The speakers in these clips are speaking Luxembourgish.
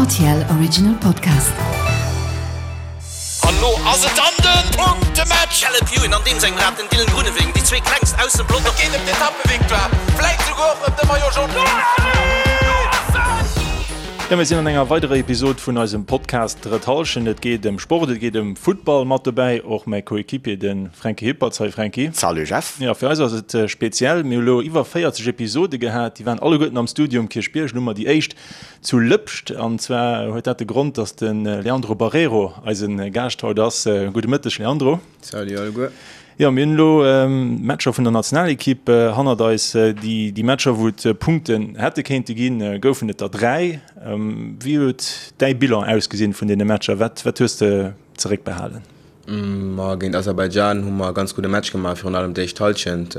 Rtl Original Podcast. An lo ass et dann den Punktematch! Caleb Ewan an deem sengem Rad den Dylan Groenewegen, déi zwee klengst aus dem Pelotong. Et geet ëm d'Etappevictoire, vläit souguer och ëm de Maillot Jaune. Jo, mir sinn an enger weiderer Episod vun eisem Podcast Drëtt Hallschent. Et geet ëm Sport, et geet ëm Futtball. Mat dobäi och mäi Coéquipier, de Fränki Hippertz. Hi Fränki. Salut Jeff. Jo, fir eis ass et speziell. Mir hu lo iwwer 40 Episode gehat. Déi waren alleguerten am Studio um Kierchbierg. Elo hu mer déi éischt zu Lëpscht. An zwar huet dat de Grond, dass de Leandro Barreiro eise Gaascht haut ass. Gudde Mëtteg Leandro. Salut alleguer. Jo, mir hunn elo d'Matcher vun der Nationalekipp hannert eis. Déi Matcher, wou et Punkten hätte kéinte ginn, goufen et der 3. Wéi huet däi Bilan ausgesinn vun deene Matcher? Wat hues de zeréckbehalen? Ma géint Aserbaidschan hu mer e ganz gudde Match gemaach, virun allem d'éischt Hallschent.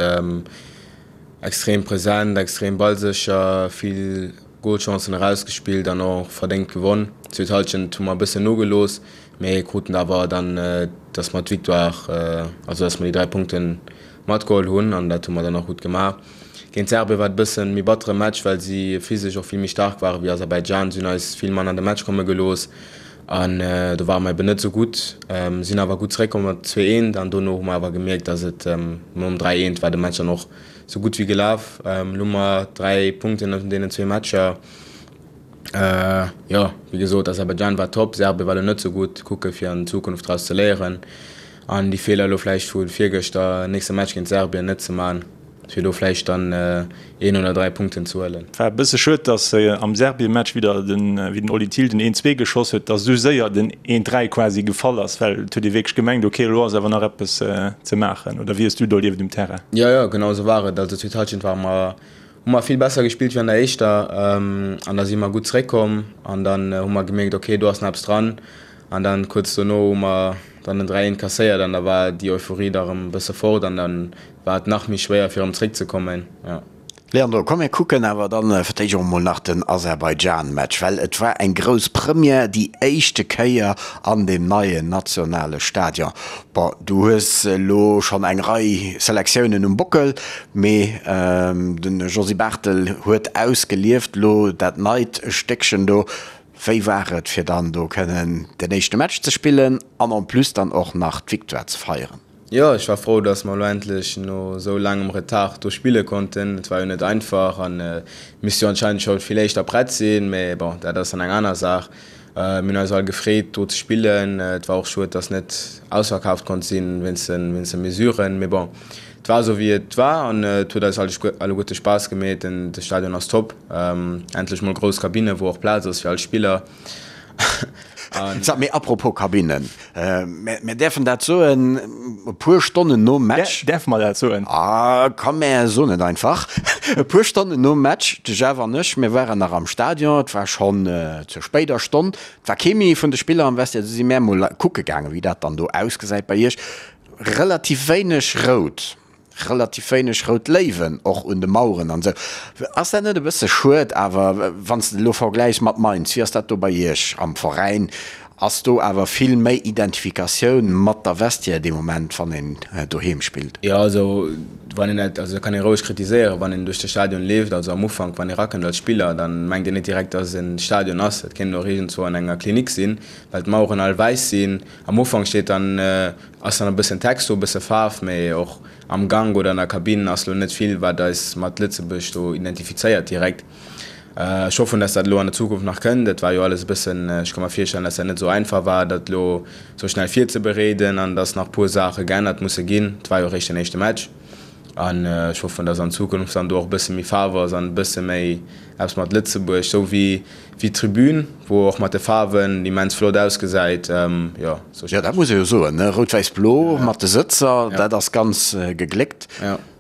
Extrem present, extrem ballsécher, vill Golchancen erausgespillt an och verdéngt gewonn. D'zweet Hallschent hu mer e bëssen nogelooss, Mee kruten awer dann, dass mer d'Victoire, also dass mer déi 3 Punkte matgeholl hunn an dat hu mer dann och gutt gemaach. Géint Serbien war et e bëssen méi battere Match, well si physesch och vill méi staark ware wéi Aserbaidschan. Si hunn eis vill manner an de Match komme gelooss an do ware mer eben net esou gutt. Sinn awer gutt zeréckkomm mat 2 eent an dono hu mer awer gemierkt, dass et nom 3 eent war de Match dann och sou gutt wéi gelaf. Elo hu mer 3 Punkten aus deenen zwee Matcher. Jo, wéi gesot, Aserbaidschan war top, Serbien war elo net sou gutt. Kucke fir an Zukunft draus ze léieren an déi Feeler elo vläicht vu virgëschter, nächste Match géint Serbien net ze man, fir do vläicht dann een oder 3 Punkten ze huelen. War e bësse schued, dass am Serbien-Match wieder den, wéi den Oli Thill den een zwee geschoss huet, dass esou séier den een 3 quasi gefall ass, well et huet ee wierklech gemengt, ok, elo ass awer nach eppes ze maachen. Oder wéi hues du et erlieft um Terrain? Jo, jo, genau esou war et. Also zweet Hallschent ware mer Hu mer vill besser gespillt wéi an der éischter an da si mer gutt zeréckkomm an dann hu mer gemierkt, ok do ass nach eppes dran an dann kuerz dono hu mer dann den 3 eent kasséiert an da war déi Euphorie da rëm e bësse fort an dann war et nach méi schwéier fir erëm zeréckzekommen, jo. Leandro, komm mir kucken awer dann fir d'éischt och emol nach den Aserbaidschan-Match, well et war eng grouss Première, déi éischte Kéier an deem neien nationale Stadion. Bon, du hues elo schonn eng Rei Selektiounen um Bockel, mee de Josy Barthel huet ausgelieft elo dat neit Stéckchen do. Wéi war et fir dann do kënnen den éischte Match ze spillen an en plus dann och nach d'Victoire ze feieren? Jo, ech war frou, dass mer elo endlech no esou laangem Retard do spille konnten. Et war jo net einfach an misst jo anscheinend scho vill éischter prett sinn, mee bon, dat ass dann eng aner Saach. Mir hunn eis all gefreet do ze spillen. Et war och schued, dass net ausverkaaft konnt sinn wéinst de Mesuren, mee bon, et war esou wéi et war an et huet eis alleguerte Spaass gemeet. De Stadion ass top, endlech mol grouss Kabinne wou och Plaz ass fir all Spiller. Sag, mee apropos Kabinnen, mär däerfen dat soen, e puer Stonnen nom Match. Däerfe mer dat soen? Ah, komm mär soen et einfach. E puer Stonnen nom Match, de Jeff an ech, mir waren nach am Stadion, et war schonn zur spéider Stonn, et war kee méi vun de Spiller am Vestiaire, du si mär mol kucke gaangen, wéi dat dann do ausgesäit bei iech. Relativ wéineg rout. Relativ wéineg rout Léiwen och un de Maueren an esou. Ass dat net e bësse schued awer, wann s de elo vergläichs mat Mainz, wéi ass dat do bei Iech am Veräin? Ass do awer vill méi Identifikatioun mat der Vestiaire dee Moment, wann een doheem spillt? Jo, also wann een dat, also dat kann ee roueg kritiséieren, wann een duerch de Stadion leeft, also am Ufank, wann ee rakënnt als Spiller, dann mengt een net direkt, dass et en Stadion ass. Dat kéint och iergendzwou an enger Klinik sinn, well d'Maueren all wäiss sinn. Am Ufank steet dann Ass dann e bëssen Text do, e bësse Faarf, mee och am Gank oder an der Kabinn ass lo net vill, wat eis mat Lëtzebuerg do identifizéiert direkt. Ech hoffen, dass dat elo an der Zukunft nach kënnt. Et war jo alles e bëssen, ech ka mer virstellen, dass dat net esou einfach war, dat elo esou schnell virzebereeden an dass nach puer Saache geännert musse ginn. Et war jo eréischt den éischte Match an ech hoffen, dass an Zukunft dann do och e bësse méi Faarf ass an e bësse méi eppes mat Lëtzebuerg, esou wéi Wéi d'Tribün, wou och mat de Faarwen immens flott ausgesäit, jo. Jo, dat muss ee jo soen, ne? Rout-Wäiss-Blo mat de Sëtzer, dat ass ganz gegléckt.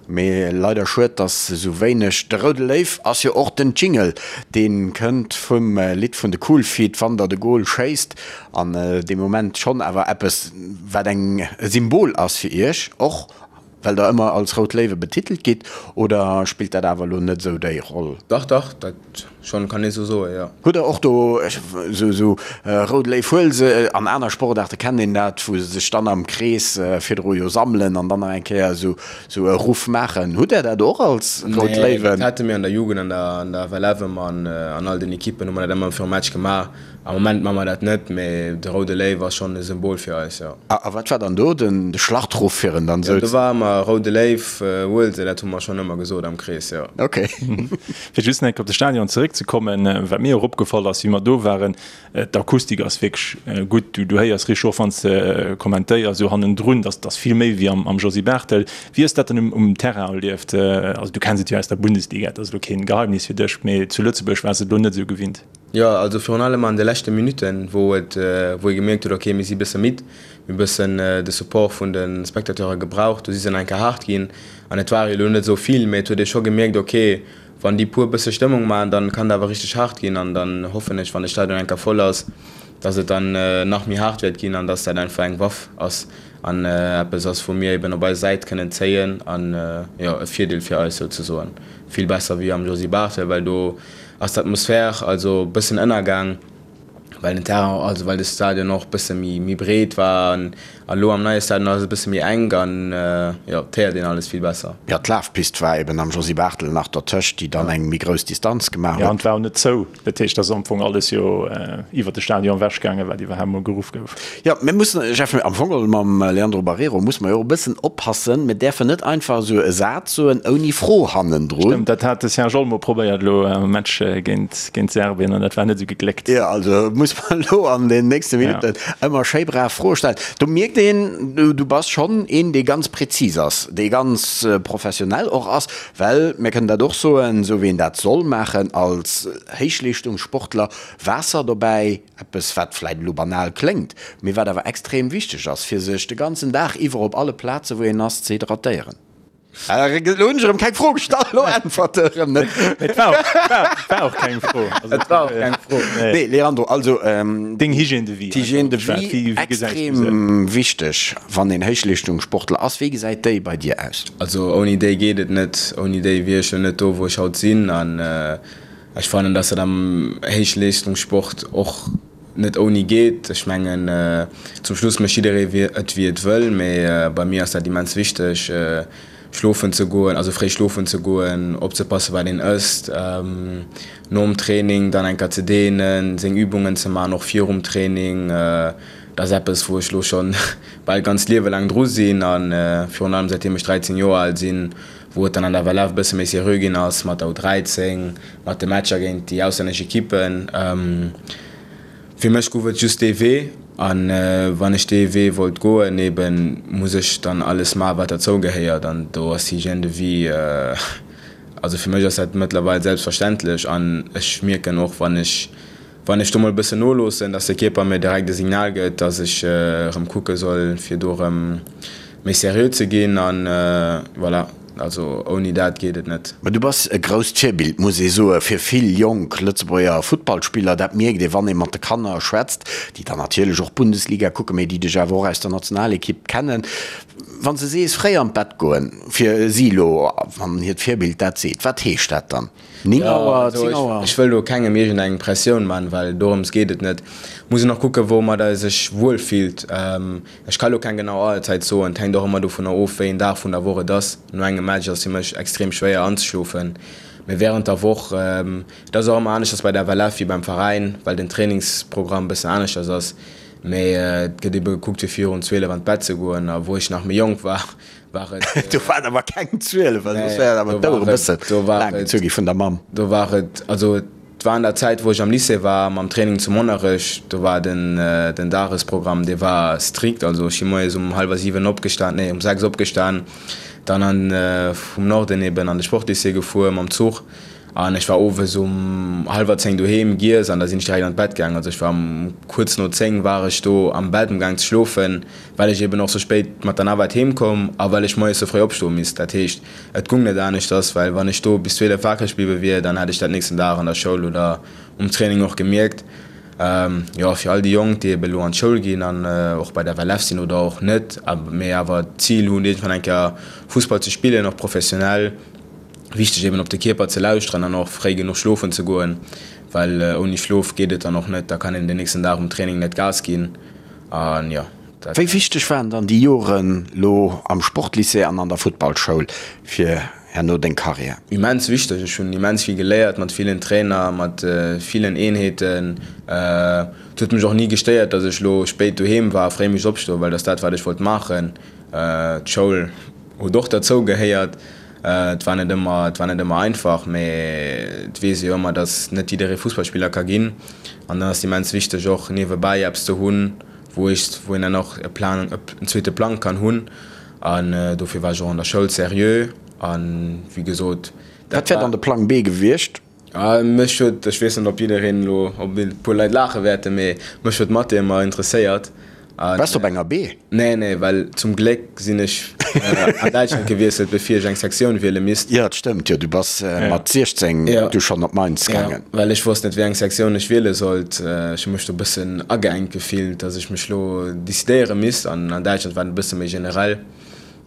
Mee leider schued, dass esou wéineg. De Roude Léiw ass jo och den Jingle, dee kënnt vum Lidd vun de Cool Feet, Wann der de Gol schéisst. An dee Moment schonn awer eppes, wat eng e Symbol ass fir iech och. Well der ëmmer als Rout Léiwe betitelt gitt, oder spillt dat awer elo net esou déi Roll? Dach, dach, dat schonn, kann ee sou soen, jo. Hutt der och do esou Rout Léiw huel se, an aner Sportaarte kennt een dat, wou se sech dann am Krees virdru jo sammelen an dann nach eng Kéier esou e Ruff maachen. Hutt der dat och als Rout Léiwen? Nee, dat hate mir an der Jugend, an der an der FLF ëmmer an an all den Ekippen hu mer dat ëmmer virum Match gemaach. Am Moment maache mer dat net, mee de Roude Léiw ass schonn e Symbol fir eis, jo. A wat war dann do den de Schlachtruff fir en dann esou? Jo, do war ëmmer Roude Léiw, huel se, dat hu mer schonn ëmmer gesot am Krees, jo. Ok. Fir just nach eng Kéier op de Stadion zeréckzekommen, wat mir och opgefall ass, wéi mer do waren, D'Akustik ass wierklech gutt. Du héiers richteg, och wann s de kommentéiers esou hannendrun, dass ass vill méi wéi am Josy Barthel. Wéi hues dat dann um Terrain erlieft? Also du kenns et jo aus der Bundesliga, dat ass elo keen Geheimnis fir dech, mee zu Lëtzebuerg waars de et elo net esou gewinnt. Jo, also virun allem an de leschte Minutten, wou et, wou ee gemierkt huet, ok mir si bësse midd, mir hu bëssen de Support vun de Spectateure gebraucht, do si se nach eng Kéier haart ginn an et ware jo elo net esou vill, mee et huet ee scho gemierkt, ok Wann déi puer bësse Stëmmung maachen, dann kann et awer richteg haart ginn an dann hoffen ech, wann de Stadion eng Kéier voll ass, dass et dann nach méi haart wäert ginn an dass dat einfach eng Waff ass an eppes ass, wou mir eben op eis Säit kënnen zéien an, jo, e Virdeel fir eis souzesoen. Vill besser wéi am Josy Barthel, well do ass d'Atmosphär also bëssen ënnergaang. well den Terrain, also well de Stadion och bësse méi méi breet war an elo am neie Stadion ass et e bësse méi enk an jo, et héiert een alles vill besser. Jo, d'Lafpist war eben am Josy Barthel nach dertëscht, déi dann eng méi grouss Distanz gemaach huet. Jo, an et war och net zou, dat heescht, et ass am Fong alles jo iwwert de Stadion ewech gaangen, wat iwwerhaapt mol geruff gouf. Jo, mir mussen, Jeff, am Fong geholl mam Leandro Barreiro musse mer jo och e bëssen oppassen, mir däerfen net einfach esou e Saz soen ouni Fro hannendrun. Stëmmt, dat hat de Serge Olmo probéiert elo am Match géint géint Serbien an dat war net esou gegléckt. Jo, also muss mer elo an den nächste Minutten ëmmer schéi brav Froe stellen. Do mierkt een, du bass schonn een, dee ganz prezis ass, dee ganz professionell och ass, well mir kënnen dat och soen, esou wéi een dat soll maachen als Héichleeschtungssportler, Waasser dobäi, eppes wat vläit elo banal kléngt, mee wat awer extrem wichteg ass, fir sech de ganzen Dag iwwer op alle Plaze wou een ass ze hydratéieren. Elo hunn ech erëm keng Fro gestallt, elo äntwert e erëm net. Et war och, war, war och keng Fro. Also, Et war och keng Fro. Nee, Leandro, also Deng Hygiène de vie. D'Hygiène de vie, wéi gesäis du se? Extrem wichteg, wann een Héichleeschtungssportler ass. Wéi gesäit déi bei dir aus? Also ouni déi geet et net. Ouni déi wier ech jo net do, wou ech haut sinn. An ech fannen, dass dat am Héichleeschtungssport och net ouni geet. Ech mengen, zum Schluss mécht jidderee et wéi et wëll, mee bei mir ass dat immens wichteg, schlofen ze goen, also fréi schlofen ze goen, opzepassen, wat een ësst, nom Training dann eng Kéier ze dehnen, seng Übungen ze maachen, och virum Training. Dat ass eppes, wou ech elo scho bal d'ganzt Liewe laang dru sinn a virun allem säitdeem ech 13 Joer al sinn, wou et dann an der FLF e bësse méi seriö ginn ass mat der U13, mat de Matcher géint déi auslännesch Ekippen. Fir mech gouf et just dee Wee an wann ech dee Wee wollt goen, eben muss ech dann alles maachen, wat derzou gehéiert an do ass d'Hygiène de vie, also fir mech ass dat mëttlerweil selbstverständlech an ech mierken och, wann ech Wann ech do mol e bëssen noloossen, dass de Kierper mir direkt e Signal gëtt, dass ech erëm kucke soll, fir do erëm méi seriö ze ginn. An voilà, also ouni dat geet et net. Mä du bass e grousst Virbild, muss ee soen, fir vill jonk Lëtzebuerger Futtballspiller. Dat mierkt ee, wann ee mat de Kanner schwätzt, déi dann natierlech och Bundesliga kucken, mee déi dech awer och aus der Nationalekipp kennen. Wann s de sees, fréi an d'Bett goen, fir si elo, wann hiert Virbild dat seet, wat heescht dat dann? 9 Auer, 10 Auer. Ech wëll do kengem iergend eng Pressioun man, well dorëms geet et net. Muss een och kucken, woumat e sech wuel fillt. Ech ka lo keng genau Auerzäit soen, et hänkt och ëmmer dovunner of, wéi een Dag vun der Woch et ass. No engem Match ass fir mech extrem schwéier anzeschlofen, mee wärend der Woch, et ass och ëmmer aneschters bei der FLF wéi beim Veräin, well den Trainingsprogramm bëssen aneschters ass. Mee et gëtt ebe gekuckt, fir virun 12 an d'Bett ze goen. A wou ech nach méi jonk war, war et. Do waren awer keng 12, well soss wär awer d'Auer e bësse laang gezu gi vun der Mamm. Do war et, also et war an der Zäit, wou ech am Lycée war, mam Training zu Monnerech, do war den den Dagesprogramm, dee war strikt. Also ech si moies um hallwer 7 opgestan, nee um 6 opgestan, dann an vum Norden eben an de Sportlycée gefuer mam Zuch an ech war owes um hallwer 10 doheem, giess an da sinn ech direkt an d'Bett gaang. Also ech war um kuerz no 10 war ech do am Bett um gaang ze schlofen. well ech eben och sou spéit mat der Navette heem koum a well ech moies sou fréi opstoe misst. Dat heescht, et gung net aneschters, well wann ech do bis 12 wakereg bliwwe wier, dann hätt ech dat nächsten Dag an der Schoul oder um Training och gemierkt. Jo, fir all déi Jonk, déi eben elo an d'Schoul ginn an och bei der FLF sinn oder och net, mee awer d'Zil hunn, iergendwann eng Kéier Fussball ze spillen, och professionell, wichteg eben op de Kierper ze lauschteren an och fréi genuch schlofen ze goen, well ouni Schlof geet et dann och net, da kann een den nächsten Dag um Training net Gas ginn. An jo, dat. Wéi wichteg waren dann déi Joren lo am Sportlycée an an der Futtballschoul fir herno deng Karriär? Immens wichteg. Ech hunn immens vill geléiert mat villen Trainer, mat villen Eenheeten. Et huet mech och ni gestéiert, datt ech lo spéit doheem war a fréi misst opstoen, well dat ass dat, wat ech wollt maachen. D'Schoul huet och derzou gehéiert. Et war net ëmmer, et war net ëmmer einfach, mee et weess ee jo ëmmer, datt net jidderee Fussballspiller ka ginn. An dann ass et immens wichteg och niewebäi eppes ze hunn, wou ech, wou een dann och e Plan, en zweete Plang kann hunn. An dofir war ech och an der Schoul seriö. An wéi gesot, dat Wat wär dann de Plang B gewiescht? Mech huet, ech weess net, ob jiddereen elo, ob e puer Leit laache wäerten, mee mech huet Mathé ëmmer interesséiert. Waars de op enger B? Nee, nee, well zum Gléck sinn ech an Däitschland gewiesselt, bevir ech eng Sektioun wiele misst. Jo, dat stëmmt jo, du bass mat 16 du schonn op Mainz gaangen. Jo, well ech wosst net, wéi eng Sektioun ech wiele sollt. Ech hu mech do e bëssen ageengt gefillt, datt ech mech lo decidéiere misst. An an Däitschland war et e bësse méi generell.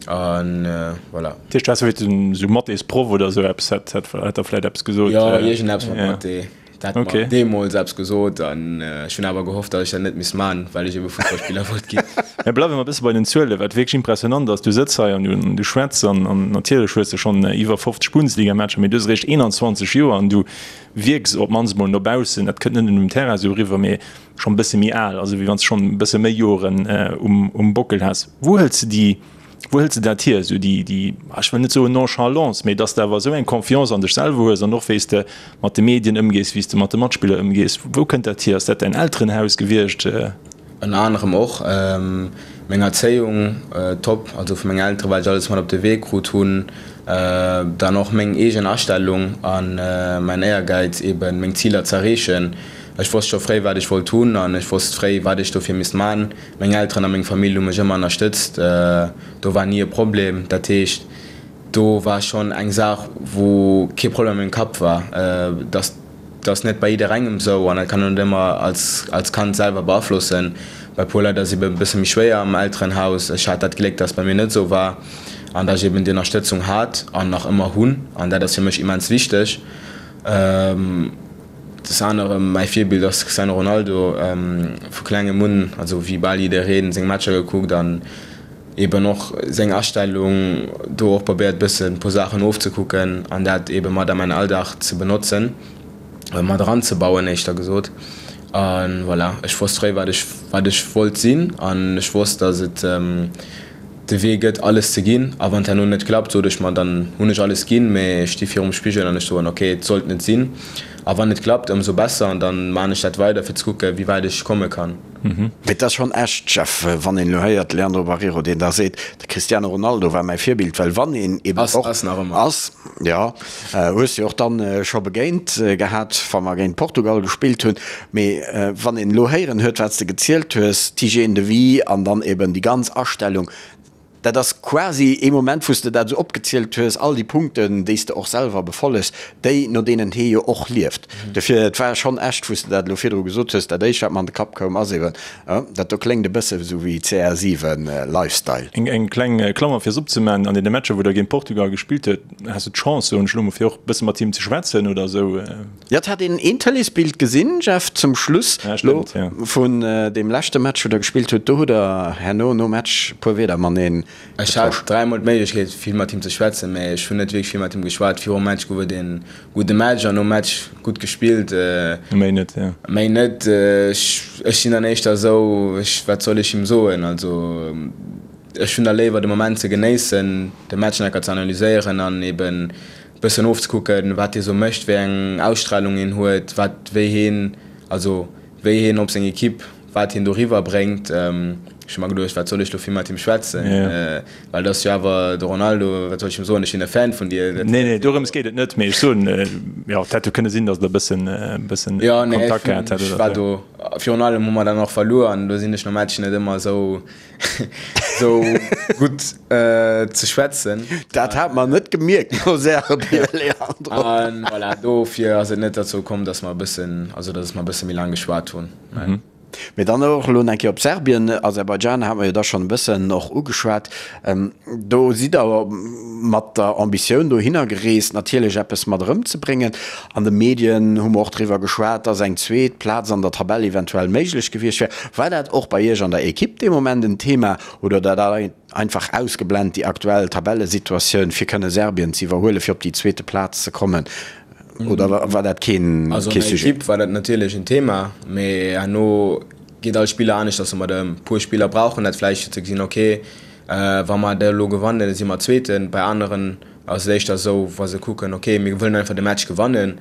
An voilà. Dat heescht, du häss vläicht esou Mathésproff oder esou eppes, hätt der vläicht eppes gesot? Jo, iergendeppes mat Mathé. Dat hat mer deemools eppes gesot an ech hunn awer gehofft, datt ech dat net misst man, well ech ebe Fussballspiller wollt ginn. Mä bleiwe mer e bësse bei den Zuelen, wat wierklech impressionant ass, Du sëtz hei an du schwätz an natierlech hues de schonn iwwer 50 Bundesligamatcher, mee du hues eréischt 21 Joer an du wierks op d'mannst emol no baussen, dat kënnt net nëmmen um Terrain esou eriwwer, mee schonn e bësse méi al, also wéi wann s de schonn e bësse méi Joren um Bockel häss. Wou hëls de déi Wou hëls de dat hier, esou déi, déi, ech wëll net soen Nonchalance, mee dass de awer esou eng Confiance an dech selwer hues an och wéi s de mat de Medien ëmgees, wéi s de mat de Matspiller ëmgees? Wou kënnt dat hier? Ass dat däin Elterenhaus gewiescht? Ënner anerem och meng Erzéiung, top, also vu mengen Elteren, wat ech alles mat op de Wee krut hunn, dann och meng eegen Astellung a mäin Éiergäiz eben meng Ziler z'erreechen. Ech wosst scho fréi wat ech wollt hunn an ech wosst fréi wat ech dofir misst man. Meng Elteren a meng Famill hu mech ëmmer ënnerstëtzt, do war ni e Problem. Dat heescht, do war schonn eng Saach, wou kee Problem a mengem Kapp war. Dat ass net bei jidderengem esou an dat kann een net ëmmer als Kand selwer beaflossen. Bei e puer Leit ass et eben e bësse méi schwéier am Elterenhaus. Ech hat dat Gléck, dass et bei mir net esou war an dass ech eben déi Ënnerstëtzung hat an nach ëmmer hunn an dat ass fir mech immens wichteg. Des anerem mäi Virbild ass Cristiano Ronaldo. Vu klengem un, also wéi bal jiddereen, seng Matcher gekuckt an eben och seng Astellung do och probéiert bëssen puer Saachen ofzekucken an dat eben mat a mäin Alldag ze benotzen, mat eranzebauen éischter gesot. A voilà, ech wosst fréi wat ech wat ech wollt sinn an ech wosst, datt et de Wee gëtt alles ze ginn a wann et herno net klappt, sot ech mer, dann hunn ech alles ginn, mee ech sti virum Spigel an ech soen, ok, et sollt net sinn a wann et klappt, ëmsou besser an dann maan ech dat weider fir ze kucke wéi wäit ech komme kann. Mee et ass schonn echt, Jeff, wann een elo héiert, Leandro Barreiro, deen da seet, de Cristiano Ronaldo war mäi Virbild, well wann een eben och. Ass nach ëmmer. Ass, jo. Hues de och dann scho begéint gehat, wa mer géint Portugal gespillt hunn. Mee wann een elo héieren huet, wat s de gezielt hues, d'Hygiène de vie an dann eben déi ganz Astellung, dat ass quasi ee Moment, wou s de dat esou opgezielt hues, all déi Punkten, déi s de och selwer befollegs, déi, no deenen hee jo och lieft. Dofir, et war schonn echt, wou s de dat elo virdru gesot hues, dat éischt, wat mer an de Kapp koum, ass eben, oh, dat do kléngt e bësse esou wéi CR7 Lifestyle. Eng kleng Klammer fir es opzemaachen, An deene Matcher, wou Der géint Portugal gespillt huet, has du d'Chance, soen ech elo mol, fir och e bësse mat him ze schwätzen oder esou? Jo, et hat een een Tëleesbild gesinn, Jeff, zum Schluss lo vun deem leschte Match, wou der gespillt hutt. Do hutt der herno nom Match e puer Wierder mateneen Ech hat dräimol d'Méiglechkeet, vill mat him ze schwätzen, mä ech hunn net wierklech vill mat him geschwat. Virum Match gouf et ee gudde Match an nom Match gutt gespillt. Méi net, jo. Méi net. Ech sinn dann éischter esou, ech, wat soll ech him soen? Also, ech hunn da léiwer de Moment ze genéissen, de Match nach enker ze analyséieren an eben bëssen ofzekucken, wat hie sou mécht, wéi eng Ausstralung hien huet, wat, wéi hien, also wéi hien op seng Equipe, wat hien doriwwer bréngt. Ech hu mer geduecht, wat soll ech do vill mat him schwätzen, well et ass jo awer de Ronaldo, wat soll ech him soen, ech sinn e Fan vun dir. Nee, nee, dorëms geet et net, mee ech soen, jo, et hätt jo kënne sinn, datt der e bëssen, bëssen Kontakt gehat hätt oder sou. Jo, nee, ech war do, virun allem hu mer dann och verluer an do sinn ech nom Match net ëmmer esou Sou gutt ze schwätzen. Dat hat mer net gemierkt no Serbien, Leandro. An voilà, dofir ass et net derzou komm, dass mer e bëssen, also dass mer e bësse méi laang geschwat hunn. Mee dann och elo eng Kéier op Serbien, Aserbaidschan hate mer jo da schonn e bëssen och ugeschwat. Do sidd Der mat der Ambitioun dohinner gereest, natierlech eppes mat erëmzebréngen. An de Medien hu mer och driwwer geschwat, dass eng zweet Plaz an der Tabell eventuell méiglech gewiescht wär. War dat och bei Iech an der Ekipp dee Moment en Thema oder hutt Der dat einfach ausgeblent, déi aktuell Tabellesituatioun, fir kënne Serbien ze iwwerhuelen, fir op déi zweete Plaz ze kommen? Oder war dat keen Also an der Sujet? Ekipp war dat natierlech en Thema, mee herno geet all Spiller aneschters domat ëm. E puer Spiller brauchen dat vläicht fir ze gesinn, ok, wa mer dat elo gewannen, da si mer Zweeten. Bei aneren ass et éischter esou, wa se kucken, ok, mir wëllen einfach de Match gewannen.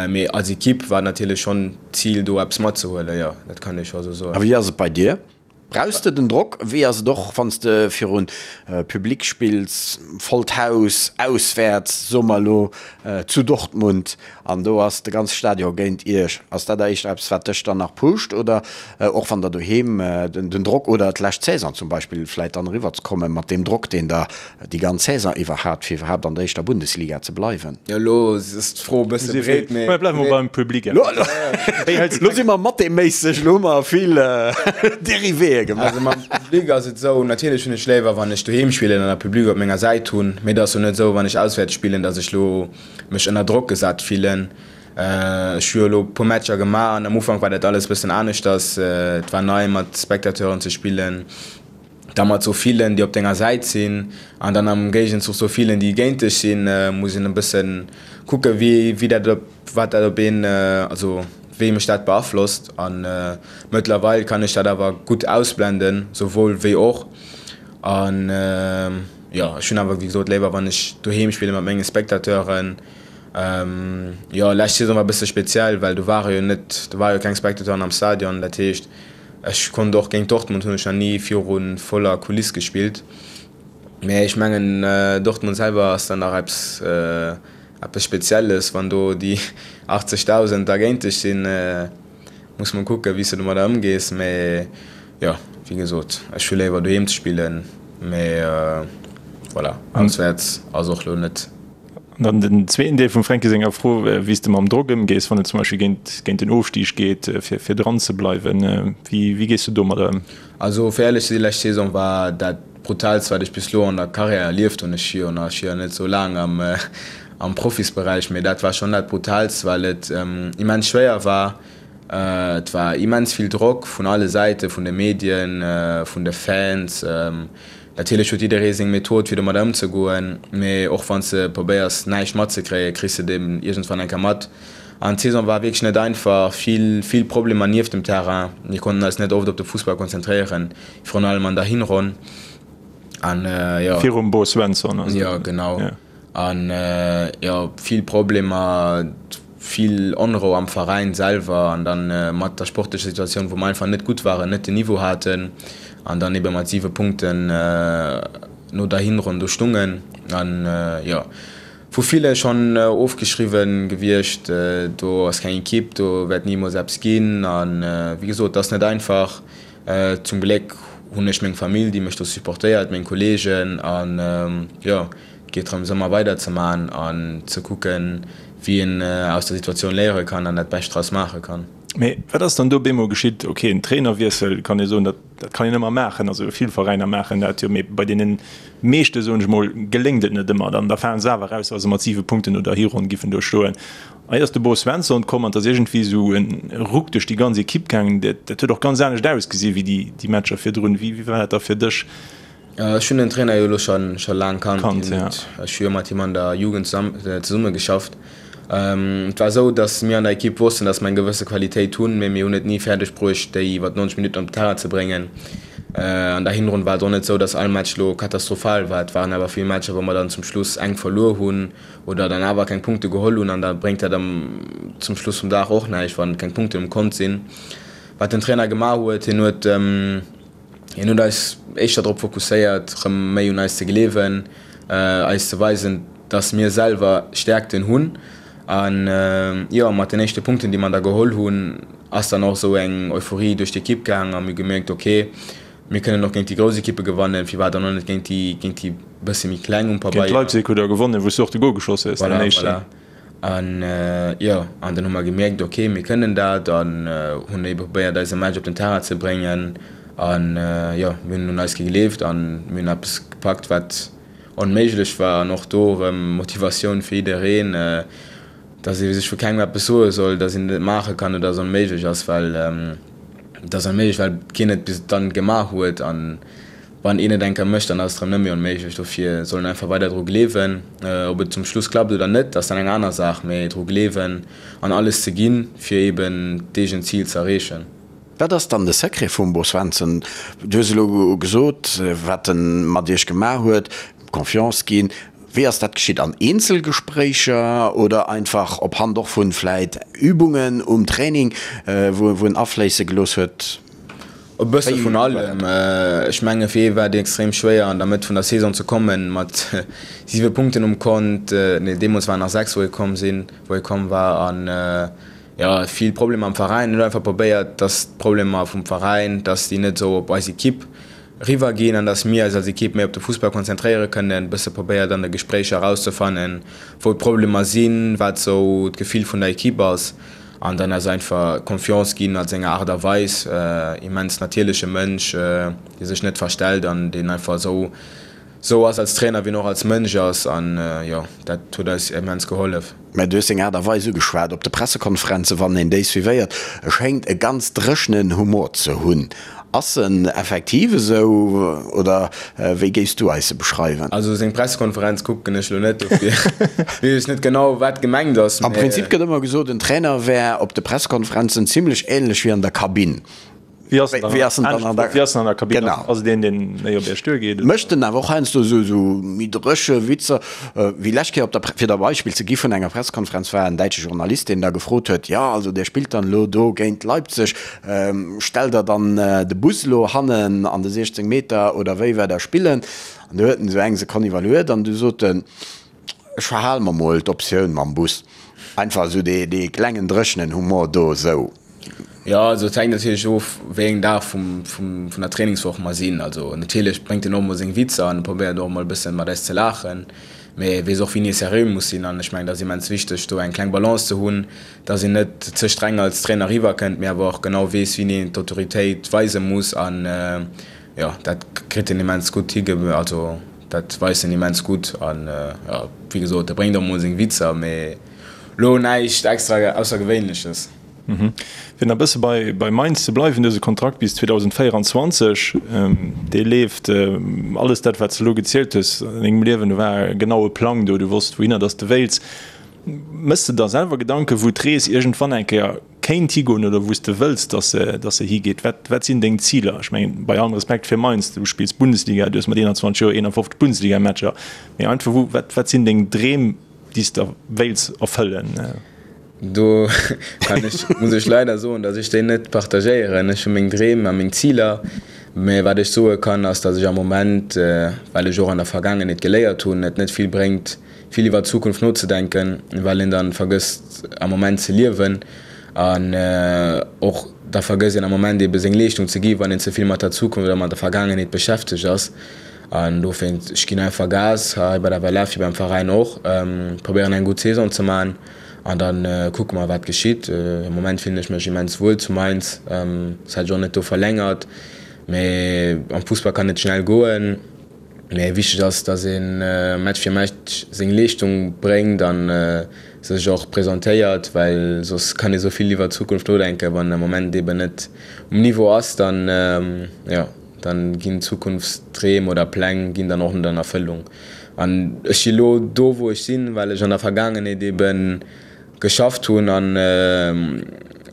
Mee als Ekipp war et natierlech schonn d'Zil, do eppes matzehuelen, jo, dat kann ee scho esou soen. A wéi ass et bei dir? Brauchs de den Drock? Wéi ass et och wann s de virun Public spills, vollt Haus, auswäerts, soe mer elo zu Dortmund, an do ass de ganze Stadion géint iech? Ass dat éischter eppes wat dech dann nach pusht oder och wann der doheem den Drock oder d'lescht Saison zum Beispill vläit dann eriwwer ze komme mat deem Drock deen der déi ganz Saison iwwer hat, fir iwwerhaapt an der éischter Bundesliga ze bleiwen. Jo, elo ass d'Fro e bësse breet, mee. Mä bleiwe mer beim Public. Elo si mer matheméisseg, elo hu mer vill Dérivéë gemaach. Also mam Public ass et esou, natierlech hunn ech léiwer, wann ech doheem spillen an e Public op menger Säit hunn, mee et ass jo net esou, wann ech auswäerts spillen, datt ech elo mech ënner Drock gesat fillen. Ech hu jo elo e puer Matcher gemaach an am Ufank war dat alles e bëssen aneschters. Et war nei, mat Spectateuren ze spillen. da mat sou villen, déi op denger Säit sinn, an dann am Géigenzuch sou villen, déi géint dech sinn, muss een e bëssen kucken, wéi, wéi dat op, wat dat op een, also wéi mech dat beaflosst. A mëttlerweil kann ech dat awer gutt ausblenden, souwuel wéi och. An jo, ech hunn awer wéi gesot léiwer, wann ech doheem spille mat menge Spectateuren. Jo, lescht Saison war e bësse speziell, well do ware jo net, do ware jo keng Spectateuren am Stadion, dat heescht, Ech konnt och géint Dortmund hunn ech nach ni viru voller Kuliss gespillt, mä ech mengen Dortmund selwer ass dann nach eppes eppes Spezielles, wann do déi 80.000 da géint dech sinn, muss mol kucken wéi s de domadder ëmgees, mä jo wéi gesot ech hu léiwer doheem ze spillen, mä voilà auswäerts ass och lo net. An dann den zweeten Deel vum Fränki senger Fro, wéi s de mam Drock ëmgees, wann et zum Beispill géint, géint den Ofstig geet, fir, fir dran ze bleiwen. Wéi, wéi gees du domadder ëm? Also fir éierlech ze sinn, lescht Saison war dat brutaalst wat ech bis elo an der Karriär erlieft hunn. Ech si jo nach, ech si jo net esou laang am, am Profisberäich, mee dat war schonn dat brutaalst, well et immens schwéier war. Et war immens vill Drock vun alle Säiten, vun de Medien, vun de Fans. Natierlech huet jidderee seng Method fir domat ëmzegoen, mee och wann s de probéiers näischt matzekréien, kriss de et eben iergendwann eng Kéier mat. An d'Saison war wierklech net einfach, vill, vill Problemer nieft dem Terrain. Mir konnten eis net oft op de Fussball konzentréieren, virun allem an der Hinronn. An jo. Virum Bo Svensson. Jo, genau. An jo, vill Problemer, vill Onrou am Veräin selwer an dann mat der sportlecher Situatioun, wou mer einfach net gutt waren, net den Niveau haten an dann ebe mat 7 Punkten no der Hinronn do stungen an jo, vu ville schonn ofgeschriwwen gewiescht, do ass keng Ekipp, do wäert nimools eppes ginn an wéi gesot, et ass net einfach. Zum Gléck hunn ech meng Famill, déi mech do supportéiert, meng Kolleegen an jo, et geet drëms ëmmer weider ze man an ze kucken, wéi een aus der Situatioun léiere kann an dat Bescht draus maache kann. Mee wat ass dann do bemol geschitt? Ok, en Trainerwiessel kann ee soen, dat dat kann een ëmmer maachen, also vill Veräiner maachen dat jo, mee bei deene meeschte soen ech mol geléngt et net ëmmer. Dann da falen se awer eraus, wa se mat 7 Punkten no der Hironn giffen do stoen. Hei ass de Bo Svensson komm an et ass iergendwéi esou en Ruck duerch déi ganz Ekipp gaangen. Dat dat huet och ganz anescht ausgesi wéi déi déi Matcher virdrun. Wéi wéi war dat da fir dech? Ech hunn den Trainer jo elo scho scho laang kannt. Kannt, ja. Ech hu jo mat him an der Jugend zesumme geschafft. Et war esou, datt mir an der Ekipp wossten, datt mer eng gewësse Qualitéit hunn, mee mir hunn et ni fäerdeg bruecht, déi iwwer 90 Minutten op den Terrain ze bréngen. An der Hinronn war et och net esou, datt all Match elo katastrophal war. Et waren awer vill Matcher, wou mer dann zum Schluss enk verluer hunn oder dann awer keng Punkte geholl hunn an da bréngt dat am zum Schluss vum Dag och näischt, wann keng Punkten um Kont sinn. Wat den Trainer gemaach huet, hien huet hien huet eis éischter drop fokusséiert, rëm méi un eis ze gleewen, eis ze weisen, dass mir selwer Stäerkten hunn an jo, mat den éischte Punkten, déi mer da geholl hunn, ass dann och esou eng Euphorie duerch d'Ekipp gaang a mir hu gemierkt, ok, Mir kënnen och géint déi grouss Ekippe gewannen, firwat dann och net géint déi, géint déi bësse méi kleng um Pabeier. Géint Leipzig hutt der gewonnen, wou s du och de Gol geschoss hues, däin éischten. Voilà, voilà. An jo, an dann hu mer gemierkt, ok, mir kënnen dat an hunn ebe probéiert eise Match op den Terrain ze bréngen. An jo, mir hunn un eis gegleeft an mir hunn eppes gepackt, wat onméiglech war. An och do erëm Motivatioun fir jiddereen, dass ee sech vu kengem eppes soe soll, dass een et net maache kann oder dass et onméiglech ass, well et ass onméiglech, well keen et bis dann gemaach huet. An Wann een et eng Kéier mécht, dann ass et erëm net méi onméiglech. Dofir soll een einfach weider dru gleewen. Ob et zum Schluss klappt oder net, ass dann eng aner Saach, mee dru gleewen an alles ze ginn, fir eben d'eegent Zil ze erreechen. Wat ass dann de Secret vum Bo Svensson? Du hues elo gesot, wat en mat iech gemaach huet, Confiance ginn. Wéi ass dat geschitt? An Eenzelgespréicher oder einfach op Hand och vun vläit Übungen um Training, wou en afléisse gelooss huet? E bësse vun allem. Ech menge fir hie war et extrem schwéier an der Mëtt vun der Saison ze kommen, mat 7 Punkten um Kont, nee deemools waren nach 6 wou hie komm sinn, wou hie komm war an jo vill Problemer am Veräin. Hien huet einfach probéiert, datt d'Problemer vum Veräin, datt déi net esou op eis Ekipp eriwwer ginn an datt mir eis als Ekipp méi op de Fussball konzentréiere kënnen. E bësse probéiert an de Gespréicher erauszefannen, wou d'Problemer sinn, wat esou d'Gefill vun der Ekipp ass. An dann ass einfach Confiance ginn a senger Aart a Weis, immens natierleche Mënsch, dee sech net verstellt an deen einfach esou esou ass als Trainer, wéi en och als Mënsch ass. An jo, dat huet eis immens gehollef. Mä du hues seng Aart a Weis ugeschwat op de Pressekonferenzen, wann een déi suivéiert, e schéngt e ganz dréchenen Humor ze hunn. Ass en effektiv esou oder wéi géifs du eis e beschreiwen? Also seng Pressekonferenz kucken ech lo net, dofir weess ech net genau wat gemengt ass. Am Prinzip gëtt ëmmer gesot, en Trainer wär op de Pressekonferenzen zimlech ähnlech wéi an der Kabinn. Wéi ass en dann an der Kabinn? Genau. Ass et een deen méi op Iech duergeet? Mécht en awer och heiansdo esou méi dréche Witzer, wéi lescht Kéier op der, fir der e Beispill ze gi vun enger Pressekonferenz war en däitsche Journalist, deen da gefrot huet, jo also dir spillt dann elo do géint Leipzig, Stellt der dann de Bus elo hannen an de 16 Meter oder wéi wäert der spillen? An du huet en esou eng Sekonn iwwerluet an du sot en, Ech verhale mer mol d'Optioun mam Bus. Einfach esou dee klengen dréchenen Humor do esou. Jo, also et hänkt natierlech of, wéi eng Dag vum, vun der Trainingswoch mer sinn. Also natierlech bréngt en och mol seng Witzer an probéiert och mol e bësse mat eis ze laachen, mee e weess och wéini e seriö muss sinn. An ech mengen, dat ass immens wichteg, do eng kleng Balance ze hunn, dass een net ze streng als Trainer eriwwer kënnt, mee awer och genau weess, wéini een d'Autoritéit weise muss. An jo, dat kritt en immens gutt hi, also dat weist en immens gutt. An jo, wéi gesot, e bréngt och mol seng Witzer, mee lo näischt extra Aussergewéinleches. Fir nach e bësse bei Mainz ze bleiwen, du hues e Kontrakt bis 2024, dee leeft. Alles dat, wat s de elo gezielt hues an dengem Liewen, do war e genaue Plang do, du wosst, wouhinner dass de wéilts. Méchs de der selwer Gedanken, wou d'Rees iergendwann eng Kéier kéint higoen oder wou s de wëlls, dass se, dass se higeet? Wat, wat sinn deng Ziler? Ech mengen, bei allem Respekt fir Mainz, du spills Bundesliga, du hues mat 21 Joer 51 Bundesligamatcher, mee einfach, wou, wat, wat sinn deng Dreem, déi s de wéilts erfëllen? Do kann ech, muss ech leider soen, dass ech déi net partagéieren. Ech hu meng Dreem a meng Ziler, mä wat ech soe kann, ass, dass ech am Moment, well ech och an der Vergaangenheet geléiert hunn, et net vill bréngt, vill iwwer d'Zukunft nozedenken, well een dann vergësst am Moment ze liewen an och da vergësst een am Moment ebe seng Leeschtung ze gi wann een ze vill mat der Zukunft oder mat der Vergaangenheet beschäftegt ass. An dofir, ech ginn einfach Gas hei bei der WLF wéi beim Veräin och, probéieren eng gutt Saison ze man an da kucke mer wat geschitt. Am Moment fillen ech mech immens wuel zu Mainz, soss hätt ech och net do verlängert, mee am Fussball kann et schnell goen. Mee wichteg ass, dass ee Match fir Match seng Leeschtung bréngt a sech och presentéiert, well soss kann ee sou vill iwwer d'Zukunft nodenken, wann am Moment eben net um Niveau ass, dann jo, dann ginn Zukunftsdreem oder Pläng ginn dann och net an Erfëllung. An ech si lo do wou ech sinn, well ech an der Vergaangenheet eben geschafft hunn an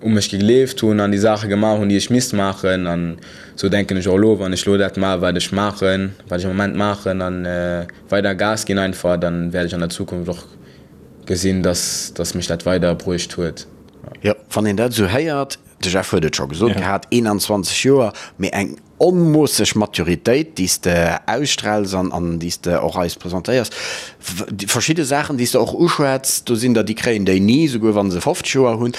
u mech gegleeft hunn an déi Saache gemaach hunn, déi ech misst maachen. An esou denken ech och elo, wann ech elo dat maachen, wat ech maachen, wat ech am Moment maachen a weider Gas ginn einfach, dann wäert ech an der Zukunft och gesinn, dass dass mech dat weider bruecht huet. Jo, wann een dat esou héiert, de Jeff huet et scho gesot gehat, 21 Joer, mee eng. onmoosseg Maturitéit, déi s de ausstraals an, an déi s de och eis presentéiers. Verschidde Saachen, déi s de och uschwätz, do sinn der, déi kréien déi ni, souguer wa se 50 Joer hunn.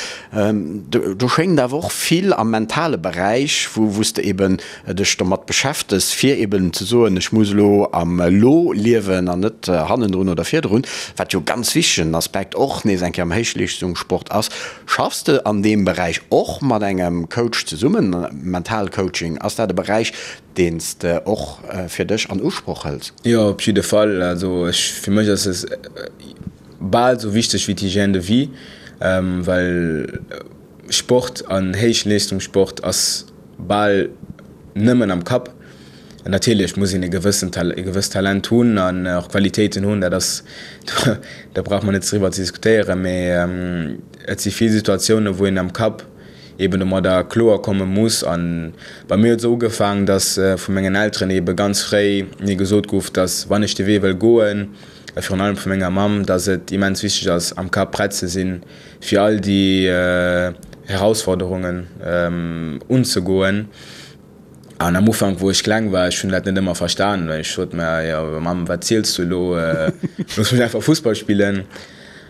Do schéngt awer och vill am mentale Beräich, wou, wou s de eben dech domat beschäftegs, fir eben ze soen, ech muss elo am Elo liewen an net hannendrun oder virdrun, wat jo e ganz wichtegen Aspekt och nees eng Kéier am Héichleeschtungssport ass. Schaffs de an deem Beräich och mat engem Coach zesummen, Mentalcoaching, ass dat e Beräich, deen s de och fir dech an Usproch hëls? Jo, op jidde Fall. Also ech, fir mech ass es bal esou wichteg wéi d'Hygiène de vie, well Sport an Héichleeschtungssport ass bal nëmmen am Kapp. Natierlech muss een e gewëssen e gewësst Talent hunn an och Qualitéiten hunn, dat ass, do brauche mer net driwwer ze diskutéieren, mee et si vill Situatiounen, wou een am Kapp eeben domadder kloer komme muss. A bei mir huet et esou ugefaangen, datt vu mengen Elteren eebe ganz fréi mir gesot gouf, datt wann ech de Wee wëll goen, a virun allem vu menger Mamm, datt et immens wichteg ass am Kapp prett ze sinn, fir all déi Herausforderungen unzegoen. An am Ufank, wou ech kleng war, ech hunn dat net ëmmer verstan, well ech sot mer, jo Mamm, wat ziels du elo, looss mech einfach Fussball spillen.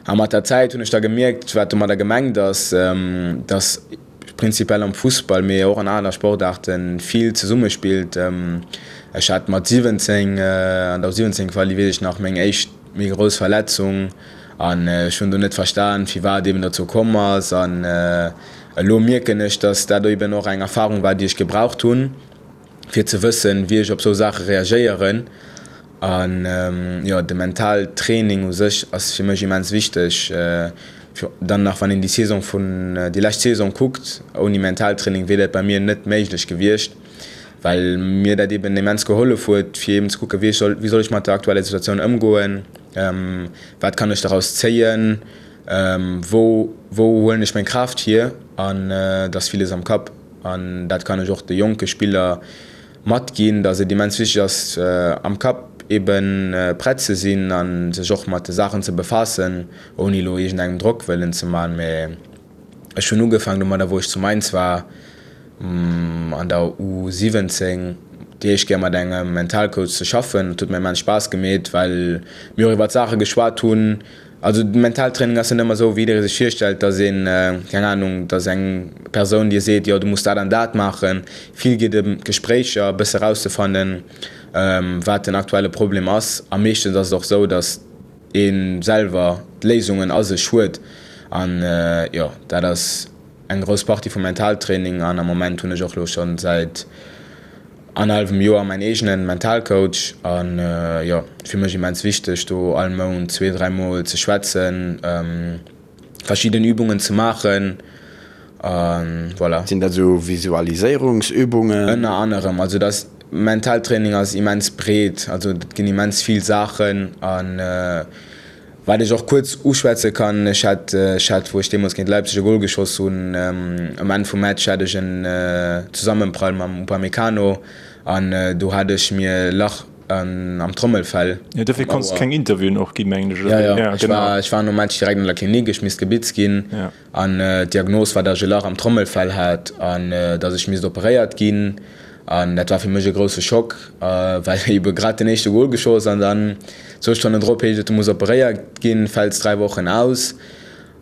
A mat der Zäit hunn ech da gemierkt, wat domadder gemengt ass, dass prinzipiell am Fussball, mee och an aner Sportaarten vill zesummespillt. Ech hat mat 17, an der U17 Quali, weess ech nach, meng éischt méi grouss Verletzung an ech hunn do net verstan, firwat eben dozou komm ass. An elo mierken ech, dass dat eben och eng Erfarung war, déi ech gebraucht hunn, fir ze wëssen, wéi ech op sou Saache reagéieren. An jo, de Mentaltraining u sech ass fir mech immens wichteg. Dann nach wann een déi Saison vun, déi lescht Saison kuckt, ouni Mentaltraining wier dat bei mir net méiglech gewiescht. well mir dat eben immens gehollef huet, fir eben ze kucken, wéi soll, wéi soll ech mat der aktueller Situatioun ëmgoen, wat kann ech daraus zéien, wou, wou huelen ech meng Kraaft hier an et ass villes am Kapp an dat kann ech och de jonke Spiller matginn, datt et immens wichteg ass, am Kapp eben prett ze sinn a sech och mat de Saachen ze befaassen, ouni elo iergendengem Drock wëllen ze man. Mä ech hunn ugefaangen domadder, wou ech zu Mainz war, an der U 17 déi éischt Kéier mat engem Mentalcoach ze schaffen. Et huet mir immens Spaass gemeet, well mir och iwwert Saache geschwat hunn. Also de Mentaltraining ass net ëmmer esou, wéi jidderee sech virstellt, dass een, keng Anung, dass eng Persoun dir seet, jo du muss dat an dat maachen. Vill geet ëm Gespréicher, e bësse rauszefannen, wat den aktuelle Problem ass. A meeschtens ass et och esou, dass ee selwer d'Léisungen a sech huet. An jo, dat ass. Eng grouss Partie vum Mentaltraining an am Moment hunn ech och lo schonn säit annerhallwem Joer mäin eegenen Mentalcoach an jo fir mech immens wichteg do all Mount zwee, 3 mol ze schwätzen, verschidden Übungen ze maachen an voilà. Sinn dat esou Visualiséierungsübungen? Ënner anerem, also dat Mentaltraining ass immens breet, also et ginn immens vill Saachen an Wat ech och kuerz uschwätze kann, ech hat, ech hat, wou ech deemools géint Leipzig e Gol geschoss hunn, um Enn vum Match hat ech en Zesammenprall mam Upamecano an do hat ech mir e Lach am Trommelfell. Jo, dofir konns de keng Interviewen och ginn, mengen ech, oder? Jo, jo, ech war, ech war nom Match direkt an der Klinik, ech misst gebitzt ginn an d'Diagnos war, datt ech e Lach am Trommelfell hat an datt ech misst operéiert ginn. An dat war fir mech e grousse Schock, well ebe grad den éischte Gol geschoss an dann zwou Stonnen drop heescht et, du muss operéiert ginn, fäls 3 Wochen aus.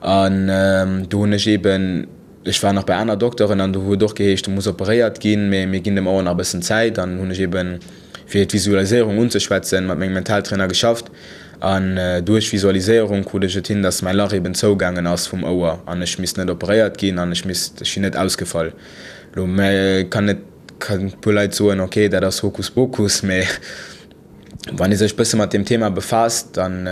An do hunn ech eben, ech war nach bei aner Dokteren an do huet och geheescht, du muss operéiert ginn, mee mir ginn dem Ouer nach e bëssen Zäit. An hunn ech eben, fir d'Visualiséierung unzeschwätzen, mat mengem Mentaltrainer geschafft. An duerch Visualiséierung krut ech et hin, dass mäi Lach eben zougaangen ass vum Ouer an ech misst net operéiert ginn an ech misst, ech sinn net ausgefall. Lo kann et kann e puer Leit soen, ok dat ass Hokuspokus, mee wann ee sech bësse mat deem Thema befaasst, dann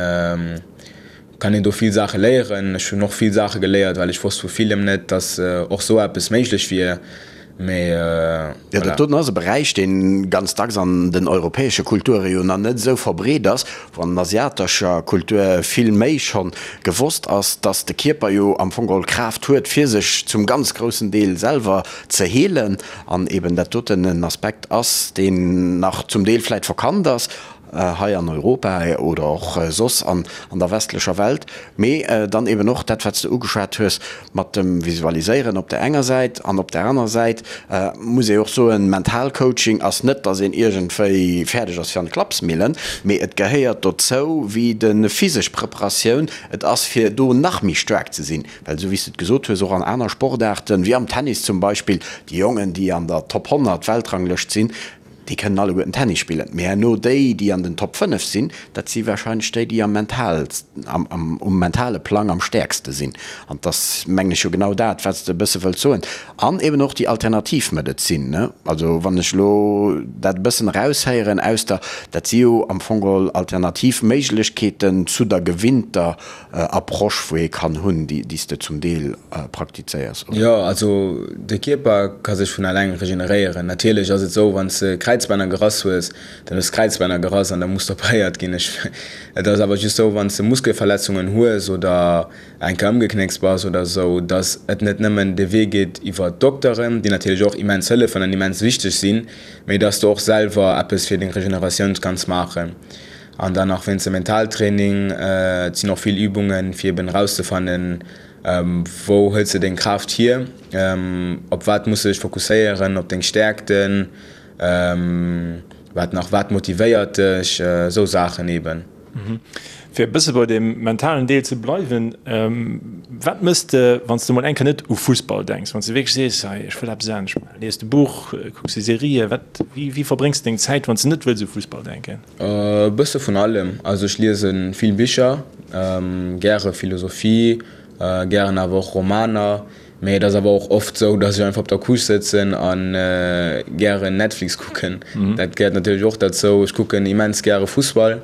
kann een do vill Saache léieren. Ech hunn och vill Saache geléiert, well ech wosst vu villem net, datt och sou eppes méiglech wier, mee Jo, dat voilà. doten ass e Beräich, dee ganz dacks an den europäesche Kulture jo nach net esou verbreet ass, wou an asiatescher Kultur vill méi schonn gewosst ass, dass de Kierper jo am Fong geholl d'Kraaft huet, fir sech zum ganz groussen Deel selwer ze heelen, an eben dat doten en Aspekt ass, deen nach zum Deel vläit verkannt ass. hei an Europa oder och soss an der westlecher Welt, mee dann eben och dat, wat s de ugeschwat hues mat dem Visualiséieren op der enger Säit an op der anerer Säit muss ee och soen, Mentalcoaching ass net, dass een iergendwéi fäerdeg ass fir an d'Klappsmillen, mee et gehéiert dozou wéi de physesch Preparatioun, et ass fir do nach méi staark ze sinn, well esou wéi s de et gesot hues, och an aner Sportaarten, wéi am Tennis zum Beispill, déi Jongen, déi an der Top 100 Weltranglëscht sinn, Déi kënnen alleguerten Tennis spillen, mee herno déi, déi an den Top 5 sinn, dat si warscheinlech déi, déi am mental, am, um mentale Plang am stäerkste sinn. An 't ass, mengen ech, jo genau dat, wat s de e bësse wëlls soen. An eben och déi Alternativmedezin, ne? Also wann ech elo dat e bëssen eraushéieren aus der, dat si jo am Fong geholl alternativ Méiglechkeeten zu der gewinnter Approche wou ee kann hunn, déi s de zum Deel praktizéiers, oder? Jo, also de Kierper ka sech vun alleng regeneréieren. Natierlech ass et esou, wann s de Kräizbänner gerass hues, dann hues d'Kräizbänner gerass an da muss operéiert ginn. Ech, et ass awer just esou, wann s de Muskelverletzungen hues oder eng Kéier ëmgeknéckst bass oder esou, datt et net nëmmen de Wee geet iwwer d'Dokteren, déi natierlech och immens hëllefen an immens wichteg sinn, mee datt s de och selwer eppes fir deng Regeneratioun kanns maachen. An dann nach wéinst dem Mentaltraining, et sinn och vill Übungen, fir eben erauszefannen, wou hëls de deng Kraaft hier, op wat muss de dech fokusséieren, op deng Stäerkten, wat nach, wat motivéiert dech, esou Saachen eben. Fir e bësse bei deem mentalen Deel ze bleiwen, wat mëss de, wann s de mol eng Kéier net u Fussball denks, wann s de wierklech sees, hei ech wëll eppes anescht maachen, lies de Buch, kucks de Serië, wat, wéi, wéi verbréngs de deng Zäit, wann s de net wëlls u Fussball denken? E bësse vun allem. Also ech liese vill Bicher, gäre Philosophie, gären awer och Romaner. Mee et ass awer och oft sou, datt ech einfach op der Couche sëtzen a gären Netflix kucken. Dat gehéiert natierlech och derzou. Ech kucken immens gäre Fussball,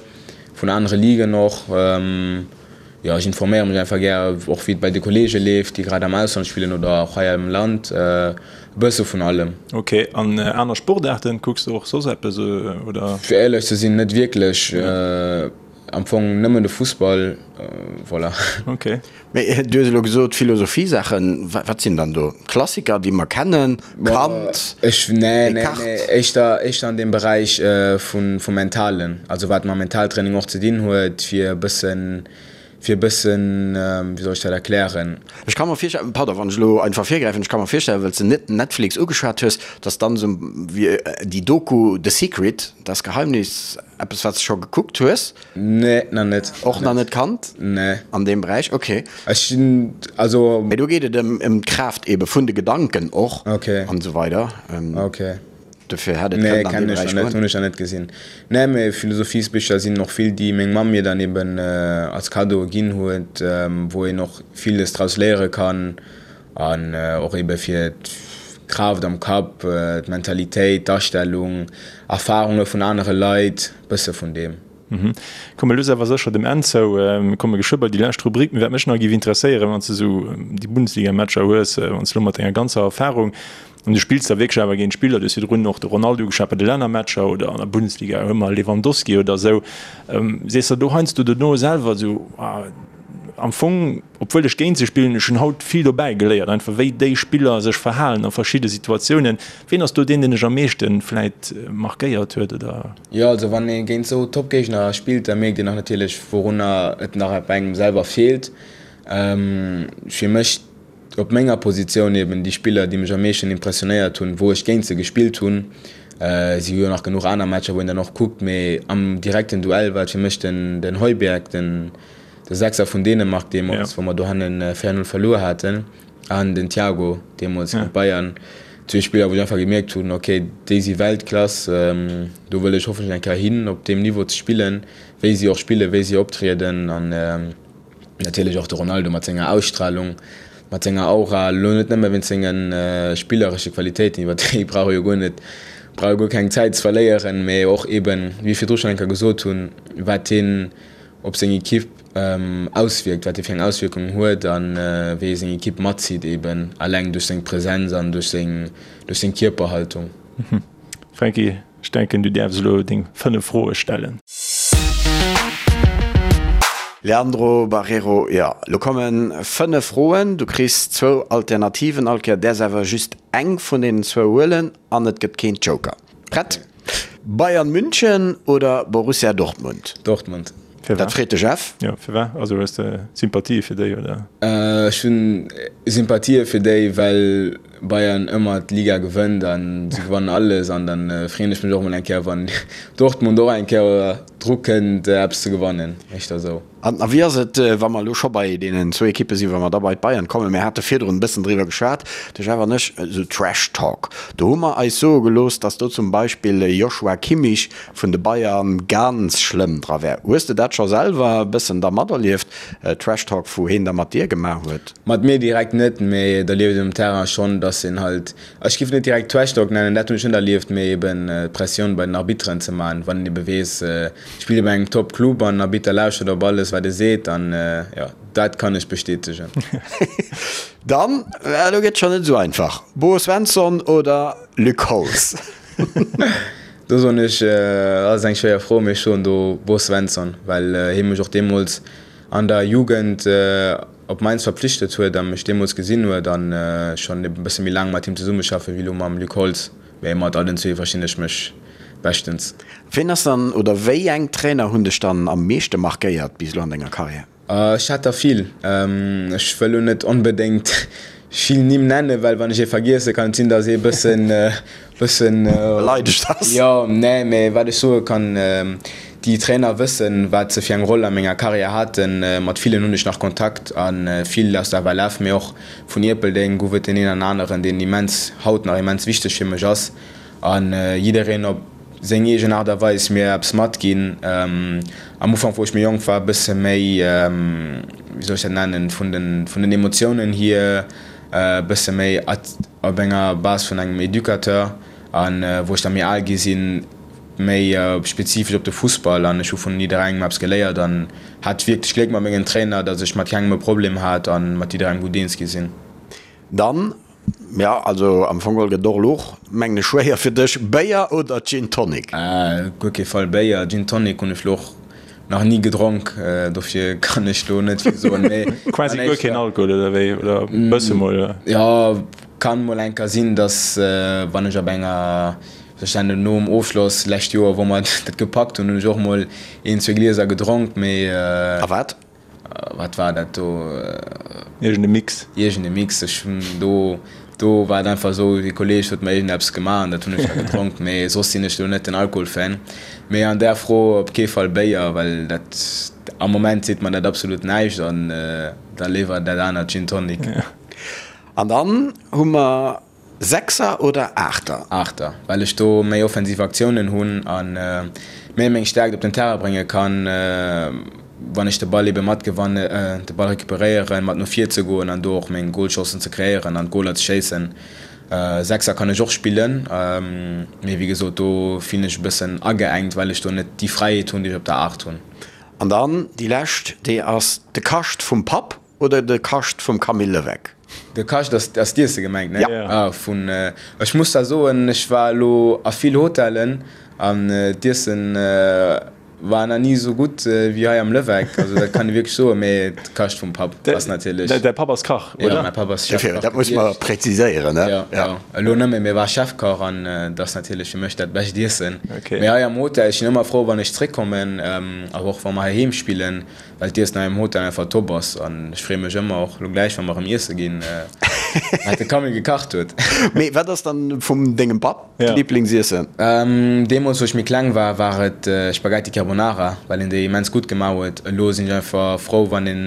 vun anere Ligen och. Jo, ech informéiere mech einfach gär, och wéi et bei de Kolleege leeft, déi grad am Ausland spillen oder och hei am Land. E bësse vun allem. Ok, an aner Sportaarten, kucks de och soss eppes oder? Fir éierlech ze sinn, net wierklech. Am Fong nëmmen de Fussball, voilà. Ok. Mee du hues elo gesot Philosophie-Saachen, wat sinn dann do Klassiker, déi mer kennen? Kant, Ech, nee, nee, nee, éischter, éischter an deem Beräich vun, vum Mentalen, also wat mam Mentaltraining och ze dinn huet, fir e bëssen, fir e bëssen, wéi soll ech dat erklären? Ech ka mer virstellen, pardon, wann ech elo einfach virgräifen, ech ka mer virstellen, well s de Netflix ugeschwat hues, dass dann esou wéi déi Doku The Secret, Das Geheimnis, eppes wat s de scho gekuckt hues? Nee, nach net. Och nach net kannt? Nee. An deem Beräich, ok. Ech sinn, also. Mee do geet et ëm ëm d'Kraaft ebe vun de Gedanken och. Ok. An esou weider. Ok. Dofir hätt et kënnen an dee Beräich goen. Nee, kennen ech nach net, hunn ech nach net gesinn. Nee, mee Philosophiesbicher sinn och vill, déi meng Mamm mir dann eben als Cadeau ginn huet, wou een och villes draus léiere kann an och ebe fir d'Kraaft am Kapp, d'Mentalitéit, d'Astellung, Erfarunge vun anere Leit, bësse vun deem. Komme lues awer sécher dem Enn zou. Mir komme geschwë bei déi lescht Rubrik. Mee wat mech nach géif interesséieren, wann s de esou déi Bundesliga-Matcher hues, wann s de elo mat denger ganzer Erfarung, an du spills da wierklech awer géint Spiller, du hues virdrun och de Ronaldo ugeschwat bei de Lännermatcher oder an der Bundesliga hu mer Lewandowski oder esou, sees der do heiansdo dono selwer esou, ah, am Fong, obwuel ech géint se spillen, ech hunn haut vill dobäi geléiert, einfach wéi déi Spiller sech verhalen a verschidde Situatiounen. Ween ass do deen, deen dech am meeschte vläit markéiert huet oder? Jo, also wann ee géint esou Top-Géigner spillt, da mierkt een och natierlech, wourunner et nach bei engem selwer feelt. Fir mech op menger Positioun eben déi Spiller, déi mech am meeschten impressionéiert hunn, wou ech géint se gespillt hunn. Si hu jo nach genuch aner Matcher, wou een dann och kuckt, mee am direkten Duell war et fir mech den Højbjerg, den de Sechser vun Dänemark deemools, wou mer dohannen 4, 0 verluer haten, an den Thiago deemools géint Bayern. Zwee Spiller, wou ech einfach gemierkt hunn, ok, déi si Weltklass, do wëll ech hoffentlech eng Kéier hin, op deem Niveau ze spillen, wéi si och spillen, wéi si optrieden. An natierlech och de Ronaldo mat senger Ausstralung, mat senger Aura, elo net nëmme wéinst senge spilleresche Qualitéiten, iwwer déi brauch ee jo guer net, brauch ee guer keng Zäit ze verléieren, mee och eeben, wéi ech virdru schonn eng Kéier gesot hunn, wat hien op seng Equipe auswierkt, wat hie fir eng Auswierkung huet a wéi e seng Equipe matzitt, eben alleng duerch seng Präsenz an duerch seng, duerch seng Kierperhaltung. Franky, ech denken du däerfs elo deng 5 Froe stellen. Leandro Barreiro, Jo, elo komme 5 Froen, du kriss zwou Alternativen all Kéier, däerfs awer just eng vun deenen zwou huelen an et gëtt keen Joker. Prett? Bayern München oder Borussia Dortmund? Dortmund. Firwat? Dat freet de Jeff. Jo, firwat? Also hues de Sympathië fir déi, oder? Ech hunn Sympathië fir déi, well Bayern ëmmer d'Liga gewënnt an si gewannen alles an dann freeën ech mech och mol eng Kéier wann Dortmund och eng Kéier dru kënnt eppes ze gewannen, éischter esou. An a wéi ass et, wa mer elo scho bei deenen zwou Ekippe sinn, wa mer da bei d'Bayern kommen, mir hate virdrun e bëssen driwwer geschwat, de Jeff an ech, esou Trash Talk, do hu mer eis soe gelooss, datt do zum Beispill e Joshua Kimmich vun de Bayern ganz schlëmm dra wär. Hues de dat scho selwer e bëssen da materlieft, Trash Talk, wou heen da mat dir gemaach huet? Mat mir direkt net, mee et erlieft een um Terrain schonn, datt een halt, ech géif et net direkt Trash Talk nennen, dat hunn ech net erlieft, mee eben Pressioun bei den Arbitteren ze man, wann een ebe weess, Spillt bei engem Top Club an Arbitter lauschtert op alles wat e seet an jo dat kann ech bestätegen. Dann, elo gëtt schon net esou einfach, Bo Svensson oder Luc Holtz? Do soen ech, ass eng schwéier Fro, mee ech soen do Bo Svensson, well hie mech och deemools an der Jugend op Mainz verpflichtet huet a mech deemools gesinn huet an schonn e bësse méi laang mat him zesummeschaffe wéi elo mam Luc Holtz. Mee mat allen zwee verstinn ech mech beschtens. Ween ass dann, oder wéi eng Trainer hunn dech dann am meeschte markéiert bis elo an denger Karriär? Ech hat der vill. Ech wëll lo net onbedéngt vill Nimm nennen, well wann ech ee vergiessen, kann et sinn, datt ee bëssen, bëssen. Beleidegt ass. Jo, nee, mee wat ech soe kann, déi Trainer wëssen, wat se fir eng Roll a menger Karriär haten. Mat villen hunn ech nach Kontakt a vill aus der FLF, mee och Vun Ierpeldeng gouf et deen een an aneren, deen immens, haut nach immens wichteg fir mech ass a jiddereen op seng eegen Aart a Weis mir eppes matginn. Am Ufank, wou ech méi jonk war, e bësse méi, wéi soll ech dat nennen, vun den, vun den Emotiounen hier e bësse méi op enger Base vun engem Educateur a wou ech da méi al gi sinn, méi spezifesch op de Fussball an ech hu vun jidderengem eppes geléiert an hat wierklech Gléck mat mengen Trainer, datt ech mat kengem e Problem hat an mat jidderengem gutt eens gi sinn. Dann, jo, also am Fong geholl gëtt et och elo och, mengen ech, schwéier fir dech, Béier oder Gin Tonic? Op guer kee Fall Béier. Gin Tonic hunn ech elo och nach ni gedronk, dofir kann ech do net vill soen, mee Quasi guer keen Alkohol oder wéi, oder e bësse mol? Jo, kann mol eng Kéier sinn, datt wann ech op enger Ech nennen nom Ofschloss lescht Joer, wou mer dat gepackt hunn, hunn ech och mol een, zwee Glieser gedronk, mee. A wat? Wat war dat do? Iergend e Mix. Iergend e Mix. Ech hunn do, do war et einfach esou, e Kolleeg huet mer iergendeppes gemaach an dat hunn ech da gedronk, mee soss sinn ech do net den Alkoholfan. Mee an där Fro op kee Fall Béier, well dat, am Moment seet mer dat absolut näischt an da léiwer dat anert Gin Tonic. An dann hu mer Sechser oder Aachter? Aachter, well ech do méi offensiv Aktiounen hunn a méi meng Stäerkt op den Terrain brénge kann, wann ech de Ball ebe matgewanne, de Ball recuperéieren, mat no vir ze goen an do och meng Golchancen ze kreéieren an d'Goler ze schéissen. Sechser kann ech och spillen, mee wéi gesot, do fillen ech e bëssen ageengt, well ech do net déi Fräiheet hunn, déi ech op der Aacht hunn. An dann déi lescht, déi ass de Kascht vum Papp Oder de Kascht vum Camille Levesque. De Kascht ass ass d'Iesse gemengt, ne? Ja. Ah, vun, ech muss da soen, ech war elo a vill Hotellen an d'Iessen war nach ni esou gutt wéi hei am Levesque. Also dat kann ee wierklech soen, mee de Kascht vum Papp ass natierlech. Däi Papp ass Kach, oder? Jo, mäi Papp ass Chefkach. Dat muss mer präziséieren, ne? Jo, jo. Elo net méi, mee war Chefkach an dat ass natierlech fir mech dat bescht Iessen. Mee hei am Hotel, ech sinn ëmmer frou wann ech zréckkommen, awer och wa mer heiheem spillen, Well d'Iessen hei am Hotel einfach top ass an ech freeë mech ëmmer, och lo gläich wa mer erëm iesse ginn, wat de Camille gekacht huet. Mee wat ass dann vum dengem Papp d'Liblingsiessen? Deemools wou ech méi kleng war, war et Spaghetti Carbonara, well en déi immens gutt gemaach huet. Elo sinn ech einfach frou wann en,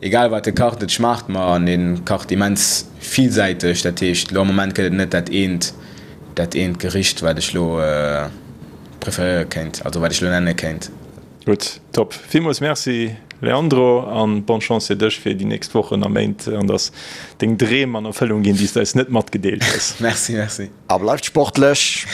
egal wat e kacht, et schmaacht mer an e kacht immens villsäiteg. Dat heescht elo am Moment gëtt et net dat eent, dat eent Gericht wat ech lo preferéiere kéint, also wat ech lo nenne kéint. Gutt, top. Villmools Merci Leandro an bonne Chance fir dech fir déi nächst Wochen a Méint an dass deng Dreem an Erfëllung ginn, déi s de eis net matgedeelt hues. Merci, merci. A bleift sportlech!